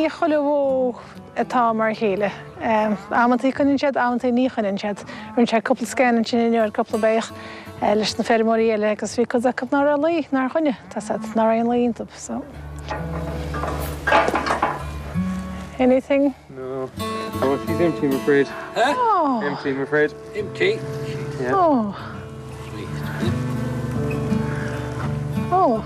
Ní chuile bhó atá mar a chéile. Amantaí coinníonn siad, amantaí ní choinníonn siad. Rinne sé cúpla scan ansin inniu ar cúpla beach leis na feirmeoirí eile agus bhí cuid acu ná raibh lao, nár choinnigh, tá 's a'd, ná raibh aon lao iontu, so. Anything? No. Oh, she's empty, I'm afraid. Huh? Oh. Empty, I'm afraid. Empty? Yeah. Oh. Oh.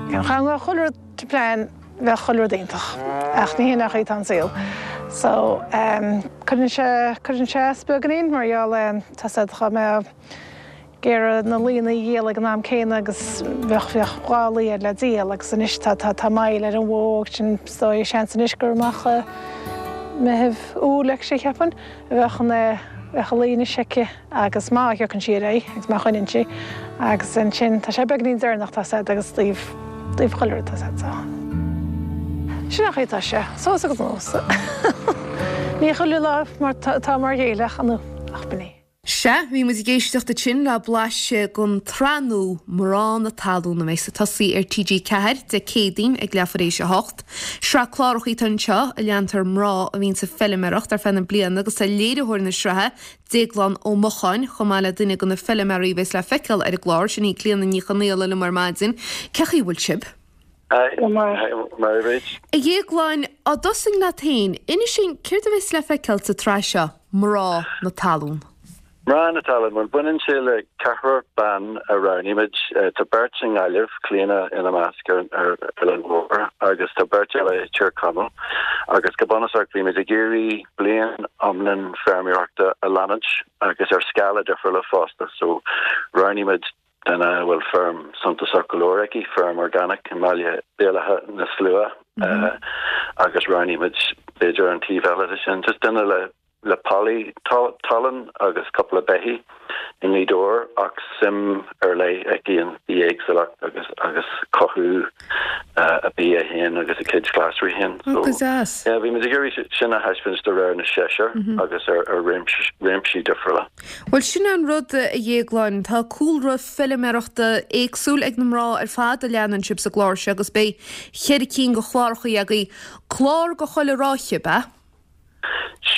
Dá mbeadh chuile rud to plan bheadh chuile rud iontach ach ní hin an chaoi atá an saol. So cuireann sé cuireann sé as beagáinín mar gheall tá 's a'd dá mbeadh ag iarraidh na laonna a dhíol ag an am céanna agus bheadh bheadh 2 lao air le díol agus anois tá tá tá moill ar an bhó agus sin is dóigh seans anois gur amach i Meitheamh Iúil actually cheapfainn a bheadh an bheadh an lao anois aici agus má thiocann sí ar aghaidh agus má choinníonn sí agus ansin tá sé beagainín deireanach tá 's a'd agus taobh taobh chuile rud tá 's a'd so sin an chaoi atá sé suas agus anuas ní chuile lá mar atá mar a chéile ach ach b'in é. Sea, bhí muid ag éisteacht ansin le blaiseadh den tsraith nua Mná na Talún a bheas ag tosaí ar TG4 Dé Céadaoin ag leathuair éis a hocht. Sraith cláracha atá anseo a leantar mná a bhíonns ag feiliméaracht ar feadh na bliana agus tá léiritheoir na sraithe, Déaglán Ó Mocháin, chomh maith le duine de na feiliméaraí a bheas le feiceáil ar an gclár, sin í Clíona Ní Chonaola liom ar maidin. Cén chaoi a bhfuil sibh? Go maith. A Dhéagláin, á dtosóinn leat féin, inis dúinn céard a bheas le feiceáil sa tsraith seo, Mná na Talún? Mná na Talún, bhuel baineann sé le ceathrar ban a roghnaigh muid. Tá beirt i nGaillimh, Clíona ina measc ar ar Oileán Mhór agus tá beirt eile i Tír Chonaill. Agus go bunúsach bhí muid ag iarraidh bliain iomlán feirmeoireachta a leanúint agus ar scála difriúla fosta. So roghnaigh muid duine a bhfuil feirm suntasach go leor aici, feirm organic i mBaile Béal Átha na Slua agus roghnaigh muid b'fhéidir an taobh eile de sin, just duine le le pollaí talún agus cúpla beithígh i nGaoth Dobhair ach suim ar leith aici in bithéagsúlacht agus agus cothú a bia féin agus a cuid glasraí féin. So yeah, bhí muid ag iarraidh sin a thaispeáint de réir na seisear agus ar ar réimsí difriúla. Bhuel, sin é an rud, a Dhéagláin. Tá cúlra feiliméarachta éagsúil ag na mná ar fad a leanann sibh sa gclár seo agus beidh cheithre cinn de chláracha agaibh. Clár do chuile ráithe, ab ea?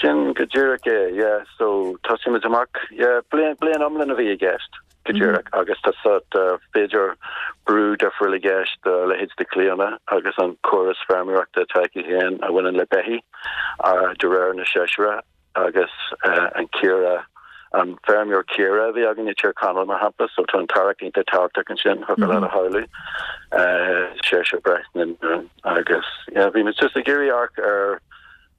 Sin go díreach é, yeah. So, tosaímid amach, yeah, bliain, bliain iomlán a bhí i gceist, go díreach, agus tá sort, b'fhéidir brú difriúil i gceist do leithéid de Clíona agus an córas feirmeoireachta atá aici féin a bhaineann le beithígh, de réir na seisear. agus an caora, an feirmeoir caora a bhí againn i Tír Chonaill mar shampla, so tá an t-amharc iontach tábhachtach ansin, thiocfadh leat a shamhlú, Seoirse Breathnach agus yeah bhí muid just ag iarraidh amharc ar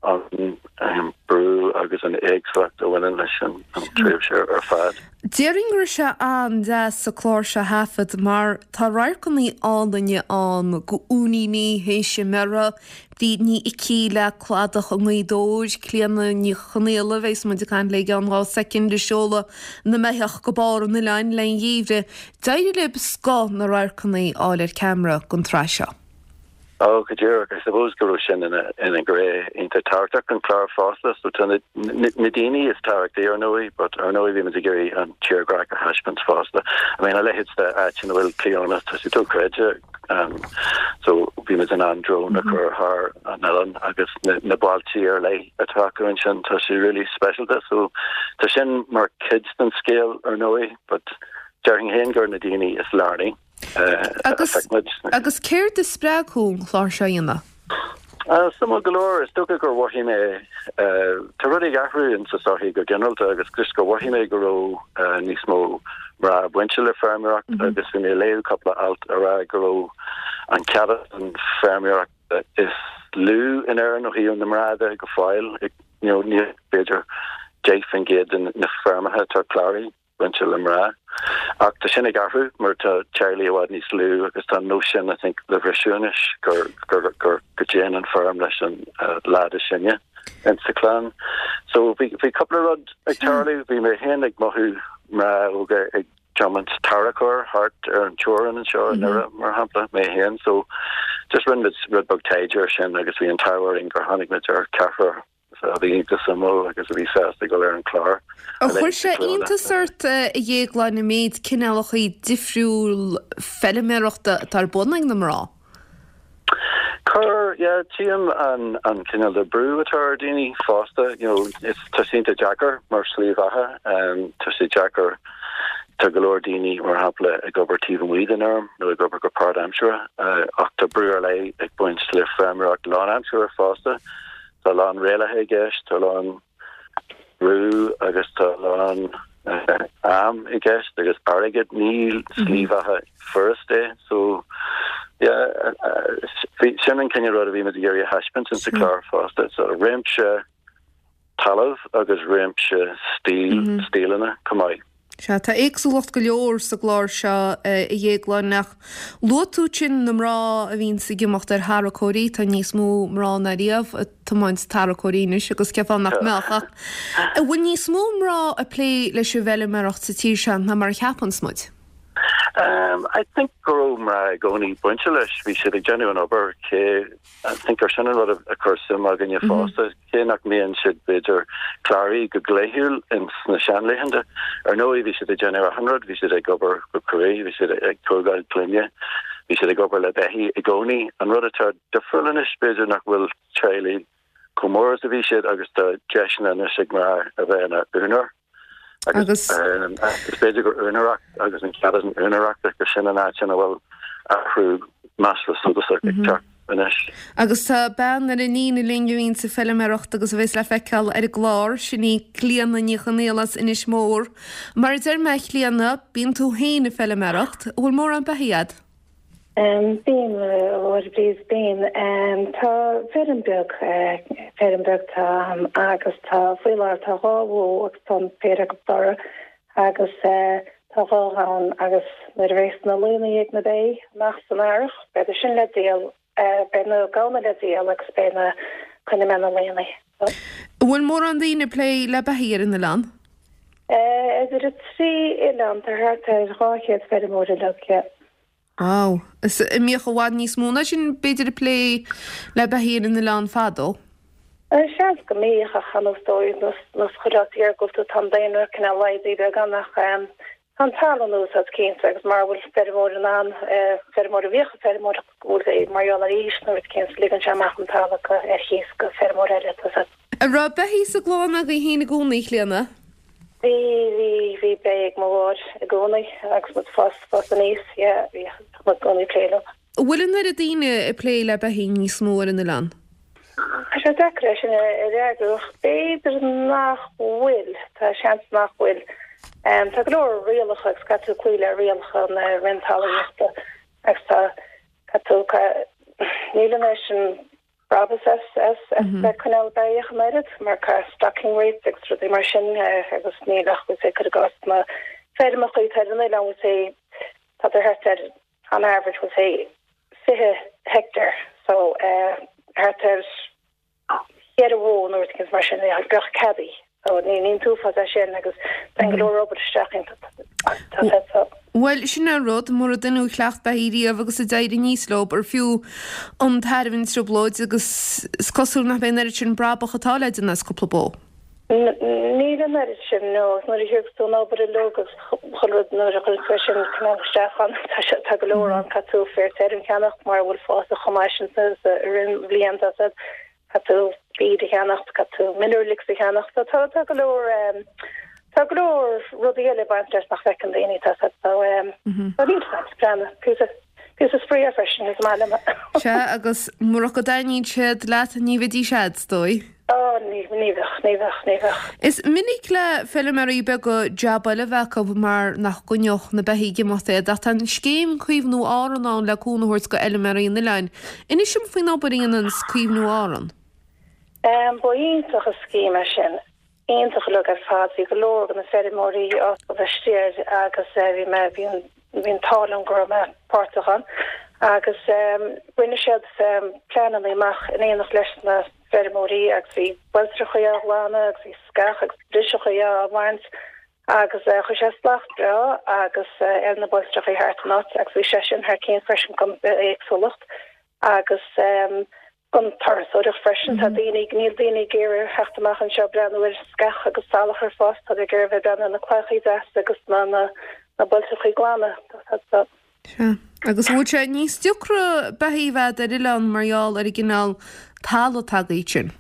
an brú agus an éagsúlacht a bhaineann leis an tréimhse ar fad. Déarfainn go raibh sé an-deas an clár seo a thaifead mar tá radharcanna álainne ann go uainíní théis a mbearrtha, Bríd Ní Icí le cladach i nGaoth Dobhair, Clíona Ní Chonaola, a bheas muid ag caint léi i gceann 2 soicind, ag seoladh na mbeithíoch go barr an oileáin le an gheimhreadh. D'éirigh libh scoth na radharcanna a fháil ar ceamara don tsraith seo. Oh, go díreach. I suppose go raibh sin ina ina ghné iontach tábhachtach den chlár fosta. So tá na na daoine is tábhachtaí ar ndóigh, but ar ndóigh bhí muid ag iarraidh an tírdhreach a thaispeáint fosta. I mean a leithéid de áit ina bhfuil Clíona, tá sé dochreidte. So bhí muid in ann drone a chur thar an oileán agus na bailtí ar leith atá acu ansin, tá sé really speisialta. So tá sin mar chuid den scéal ar ndóigh, but déarfainn féin gur na daoine is lárnaí a phioc muid. Agus céard a spreag thú an clár seo a dhéanamh? Suimiúil go leor, is dócha gur mhothaigh mé, tá rudaí ag athrú in sa sochaí go ginearálta agus just gur mhothaigh mé go raibh níos mó mná bainte le feirmeoireacht agus bhí mé ag léamh cúpla alt a rá go raibh an céatadán feirmeoireachta is lú in Éirinn ó thaobh na mná de go fóill, you know, níl b'fhéidir 10% de na feirmeacha atá cláraithe. bainte le mná. Ach tá sin ag athrú mar tá teaghlaigh i bhfad níos lú agus tá an nós sin I think le bhriseadh anois gur gur gur go dtéann an feirm leis an leaid is sine in sa chlann. So bhí bhí cúpla rud ag tarlú, bhí mé féin ag mothú mná óga ag tiomáint tarracóir thart ar an teorainn anseo i nDoire mar shampla, mé féin. So just rinne muid rud beag taighde ar sin agus bhí an t-ádh orainn gur tháinig muid ar ceathrar a bhí iontach suimiúil agus a bhí sásta dul ar an chlár. Ar chuir sé iontas ort, a Dhéagláin, an méid cineálacha difriúil feilméarachta atá ar bun ag na mná? Chuir, yeah, tchím an an cineál de brú atá ar daoine fosta, you know, is tá sé iontach deacair mar slí bheatha, tá sé deacair, tá go leor daoine, mar shampla, ag obair taobh amuigh den fheirm nó ag obair go páirtaimseartha, ach tá brú ar leith ag baint le feirmeoireacht lánaimseartha fosta, tá a lán rialacha i gceist, tá a lán. brú agus tá a lán am i gceist agus airgead. Ní slí bheatha furast é. So yeah, sin an cineál rud a bhí muid ag iarraidh a thaispeáint insa chlár fosta. So réimse talamh agus réimse stíl, stíleanna chomh maith. Sea, tá éagsúlacht go leor sa gclár seo, a Dhéagláin, ach luaigh tú ansin na mná a bhíonns ag imeacht ar tharracóirí, tá níos mó mná ná riamh ag tiomáint tarracóirí anois agus cén fáth nach mbeadh, ach an bhfuil níos mó mná ag plé leis an bhfeilméaracht sa tír seo ná mar a cheapanns muid? I think go raibh mná i gcónaí bainte leis, bhí siad ag déanamh an obair cé I think gur sin an rud a chuir suim againne fosta, cé nach mbíonn siad b'fhéidir cláraithe go dlíthiúil ins na seanlaethanta. Ar ndóigh bhí siad ag déanamh achan rud, bhí siad ag obair go cruaidh, bhí siad ag tógáil clainne, bhí siad ag obair le beithígh i gcónaí. An rud atá difriúil anois b'fhéidir nach bhfuil teaghlaigh chomh mór is a bhí siad agus tá deiseanna anois ag mná a bheith ina úinéir. Agus is b'fhéidir gur úinéireacht agus an cead an úinéireachta gur sin an áit ina bhfuil athrú measartha suntasach ag teacht anois. Agus tá bean ar an líne linn a bhíonns ag feilméaracht agus a bheas le feiceáil ar an gclár, sin í Clíona Ní Chonaola as Inis Mór. Mar a deir mé a Chlíona, bíonn tú féin ag feilméaracht, an bhfuil mórán beithígh a'd? Bíonn, a Mháire please, bíonn. Tá feirm beag, feirm beag tá a'm agus tá, faoi láthair tá dhá bhó agus tá an péire acu dorcha agus tá dhá ghamhain agus nuair a bheas na laonna ag na beithígh amach san earrach beidh sin le díol, beidh na gamhna le díol agus beidh na, coinneoidh mé na laonna. An bhfuil mórán daoine ag plé le beithígh ar an oileán? Idir an trí oileán tá thart ar 200 feirmeoir uilig, yeah. Wow. Is an mbíodh i bhfad níos mó ná sin b'fhéidir ag plé le beithígh ar an oileán fadó? Seans go mbíodh ach ar ndóigh nós chuile áit iargúlta tá an daonra cineál laghdaithe beagán ach tá an talamh in úsáid cinnte agus mara bhfuil feirmeoir in ann, feirmeoir a bhíodh ag feirmeoireacht go bhfuil mar gheall ar aois nó rud éicint ligeann sé amach an talamh ar chíos go feirmeoir eile tá a. An raibh beithígh sa gclann agaibh féin i gcónaí, a Chlíona? Bhí, bhí, bhí beithígh ag mo mháthair i gcónaí agus muid fás, fás aníos, yeah, bhí muid i gcónaí ag plé leo. An bhfuil an oiread daoine ag plé le beithígh níos mó ar an oileán? Tá sé deacair é sin a fhreagrú ach b'fhéidir nach bhfuil, tá seans nach bhfuil. Tá go leor rialacha agus caithfidh tú cloí le rialacha na Roinn Talmhaíochta agus tá, caithfidh tú, níl an oiread sin brabús as as as bheith ag coinneáil beithíoch an oiread mar caithfidh stocking rates agus rudaí mar sin agus níl ach we'll say cuir i gcás na feirmeacha atá ar an oileán we'll say tá thart ar on average we'll say 20 heicteár so thart ar cheithre bhó nó rud éicint mar sin bheadh ceadaithe. So ní an t-uafás é sin agus téann go leor obair isteach iontu. Tá sé so. Bhuel, sin é an rud, mura duine a chleacht beithígh riamh agus a d'éirigh aníos leo, ar fiú an tairbhe an trioblóid agus is cosúil nach mbeidh an oiread sin brabach atá le déanamh as cúpla bó. Níl an oiread sin, no. Agus nuair a thiocfas tú an obair uilig agus chuile rud nuair a chuireann tú é sin cineál isteach ann, tá sé, tá go leor ann, caithfidh tú féar tirim a cheannacht mara bhfuil fásta chomh maith sin sa, sa, i rith an bhliain, tá sé. Caithfidh tú feed a cheannacht, caithfidh tú mineral licks a cheannacht. So tá tá go leor tá go leor rudaí eile ag baint leis nach bhfeiceann daoine tá so so tá níl said plean píosa píosa spraoi é freisin is maith liom. Sea agus murach go dtaitníonn siad leat ní bheidís a'd, is dóigh. Ó ní ní bheadh ní bheadh ní bheadh. Is minic le feilméaraí beaga jab eile a bheith acu mar nach gcoinneodh na beithígh ag imeacht iad ach tá an scéim Caomhnú Árann ann le cúnamh a thabhairt go fheilméaraí an oileáin. Inis dom faoin obair a dhéananns Caomhnú Árann. Ba iontach an scéim é sin. Iontach uilig ar fad. Bhí go leor de na feirmeoirí ábalta a bheith istigh air agus bhí mé, bhí an, bhí an t-ádh liom go raibh mé páirteach ann. Agus rinne siad pleananna amach in éineacht leis na feirmeoirí agus bhí bailtreachaí á ghlanadh agus bhí sceach agus driseachaí á bhaint agus chuir sé slacht breá agus ar na bailtreachaí thart an áit agus bhí sé sin thar cionn freisin don bhithéagsúlacht agus don turasóireacht freisin. Tá daoine, níl daoine ag iarraidh theacht amach anseo breathnú ar sceach agus salachar ag fás, tá siad ag iarraidh bheith ag breathnú ar na claíochaí deasa agus na na na bailtreachaí glana. Sea. Agus an bhfuil sé níos deacra beithígh a bheith ar oileán mar gheall ar an gcineál talaimh atá agaibh ansin?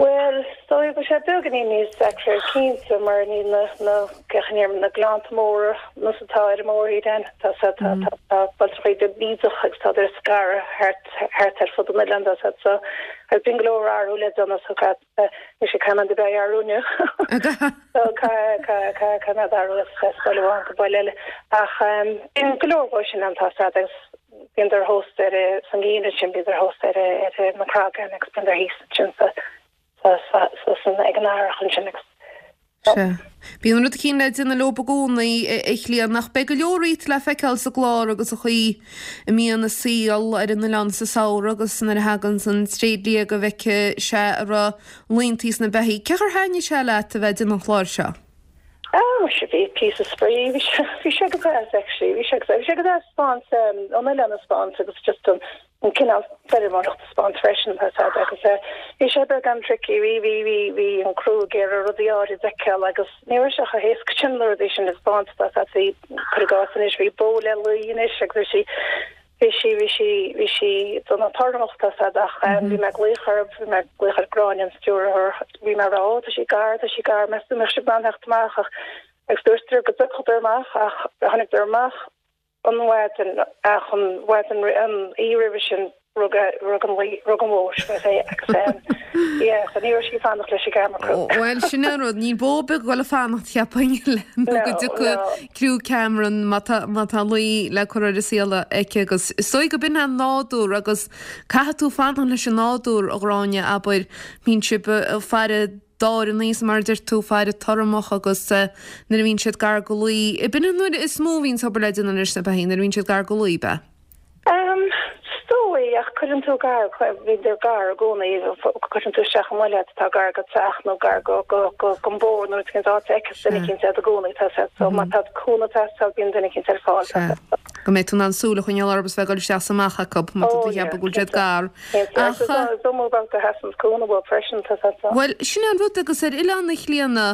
Bhuel, is dóigh go bhfuil sé beagáinín níos deacra cinnte mar níl na, na, na gleannta móra nós atá ar an mórthír ann. Tá, tá, tá, tá bailteachaí beag bídeach agus tá ar scaradh thart, thart ar fud an oileáin tá siad so agus bíonn go leor athrú le déanamh so caithfidh, mise caithfidh mé an beidh athrú inniu. So caithfidh, caithfidh, caithfidh, caithfidh mé athrú as baile amháin go baile eile. Ach bíonn go leor dhó sin ann tá siad agus Bíodar thuas ar san gheimhreadh sin bíodar thuas ar ar na cragáin agus bíodar thíos ansin sa sa sa san ag an earrach ansin agus Sea. Bíonn rud eicínt le déanamh leob i gcónaí, a Chlíodhna, ach beidh go leor dhíot le feiceáil sa gclár agus an chaoi a mbíonn an saol ar an oileán sa samhradh agus nuair a thaganns an tréidlia go bhfeicfidh sé an raibh laontaí sna beithígh. Cén chaoi ar thaitnigh sé leat a bheith ag déanamh an chláir seo? Ah, muise, bhí píosa spraoi, bhí sé, bhí sé go deas actually, bhí sé go deas, bhí sé go deas 'spáint, an oileán a 'spáint agus just an, an cineál feirmeoireacht a 'spáint freisin, tá a fhios a'd agus eh, bhí sé beagán tricky, bhí, bhí, bhí, bhí an criú ag iarraidh rudaí áirid a fheiceáil agus ní raibh sé chomh héasca sin na rudaí sin a 'spáint, tá a fhios a'd, bhí, cuir i gcás anois, bhí bó le lao anois agus bhí sí, Bhí sí, bhí sí, bhí sí dona tormach tá a fhios a'd ach bhí mé ag glaoch orthu, bhí mé ag glaoch ar Gráinne an stiúrthóir, bhí mé ag rá ó tá sí gar, tá sí gar, meas tú an mbeadh sibh in ann theacht amach ach agus dúirt go dtiocfadar amach ach tháinig amach an mhaidin ach an mhaidin an oíche roimhe sin rug rug an rug an bhó sin é agus yeah so ní raibh sí ag fanacht leis an gcamera crew. Bhuel sin an rud, níl bó ar bith ag dul ag fanacht cheapfainn nó go dtiocfaidh criú ceamara má tá má tá lao le cur ar an saol aici agus is dóigh go b'in an nádúr agus caithfidh tú fanacht leis an nádúr a Ghráinne abair bíonn sibh ag faire dáireanna is mar a deir tú faire tormach agus nuair a bhíonn siad gar go lao, b'in an uair is mó a bhíonn obair le déanamh leis na beithígh nuair a bhíonn siad gar go lao, b'ea? Is dóigh, ach cuireann tú gar, bíodar gar i gcónaí, cuireann tú isteach i mbaile atá gar go teach nó gar go, go, go, gon bóthar nó cén áit a fheiceas duine eicínt iad i gcónaí, tá siad, so má tá cúnamh ag teastáil bíonn duine eicínt ar fáil, tá siad. Go mbeidh tú in ann súil a choinneáil orthu is bheith ag dul isteach is amach acu má tá tú ag ceapadh go bhfuil siad gar. Ach, is iomaí babhta a sheasanns cúnamh uathu freisin, tá siad so. Bhuel, sin é an rud agus ar Oileán na Clíodhna,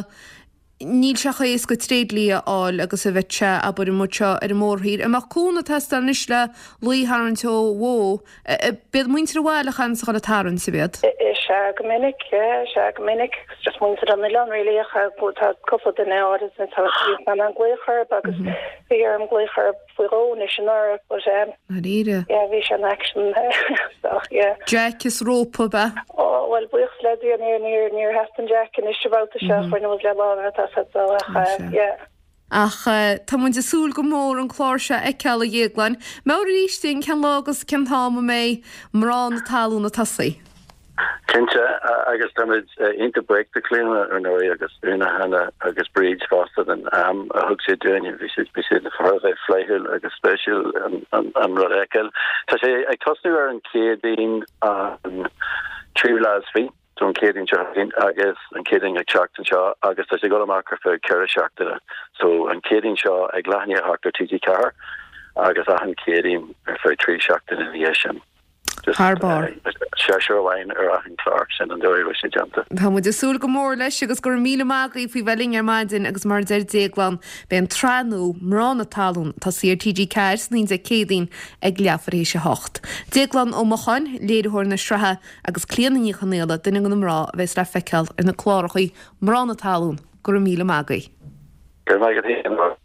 Níl sé chomh héasca tréidlia a fháil agus a bheadh sé, abair, amuigh anseo ar an mórthír. An mbeadh cúnamh ag teastáil anois le lao a tharraingt ó bhó? B'iad muintir an bhaile a chaithfeas a dhul ag tarraingt, ab iad? Is ea go minic, yeah, is ea go minic. It's just muintir an oileáin really ach tá cúpla duine áirid atá in ann glaoch orthu agus bhí orm glaoch orthu faoi dhó anois anuraidh but um Dáiríre. yeah bhí sé in action so yeah. Jack is rópa ab ea? Oh bhuel buíochas le Dia níor níor níor theastaigh an jack anois an babhta seo rinne muid le lámha tá sé so ach Sea. yeah. Ach tá muid ag súil go mór an clár seo a fheiceáil a Dhéagláin. Meabhraigh arís dúinn cén lá agus cén t-am a mbeidh Mná na Talún ag tosaí. Cinnte, agus táimid iontach buíoch de Chlíona, ar ndóigh, agus Úna, Hannah agus Bríd fosta den am a thug siad dúinn. Bhí siad bhí siad thar a bheith flaithiúil agus spéisiúil an an rud a fheiceáil. Tá sé ag tosnú ar an Chéadaoin an tríú lá is fiche, so an Chéadaoin seo chugainn agus an Chéadaoin ag teacht anseo agus tá sé ag dul amach ar feadh 4 seachtaine. So an Chéadaoin seo ag leath i ndiaidh a hocht ar TG4 agus achan Chéadaoin ar feadh 3 seachtaine ina dhiaidh sin. Thar barr. Seisear amháin ar achan chlár, sin an dóigh a bhfuil sé déanta. Tá muid ag súil go mór leis agus go raibh míle maith agaibh faoi bheith linn ar maidin agus mar a deir Déaglán, beidh an tsraith nua, Mná na Talún, ag tosaí ar TG4 san Dé Céadaoin ag leathuair théis a hocht. Déaglán Ó Mocháin, léiritheoir na sraithe agus Clíodhna Ní Chonaola, duine de na mná a bheas le feiceáil ar na clárachaí Mná na Talún, go raibh míle maith agaibh. Go raibh maith agat féin.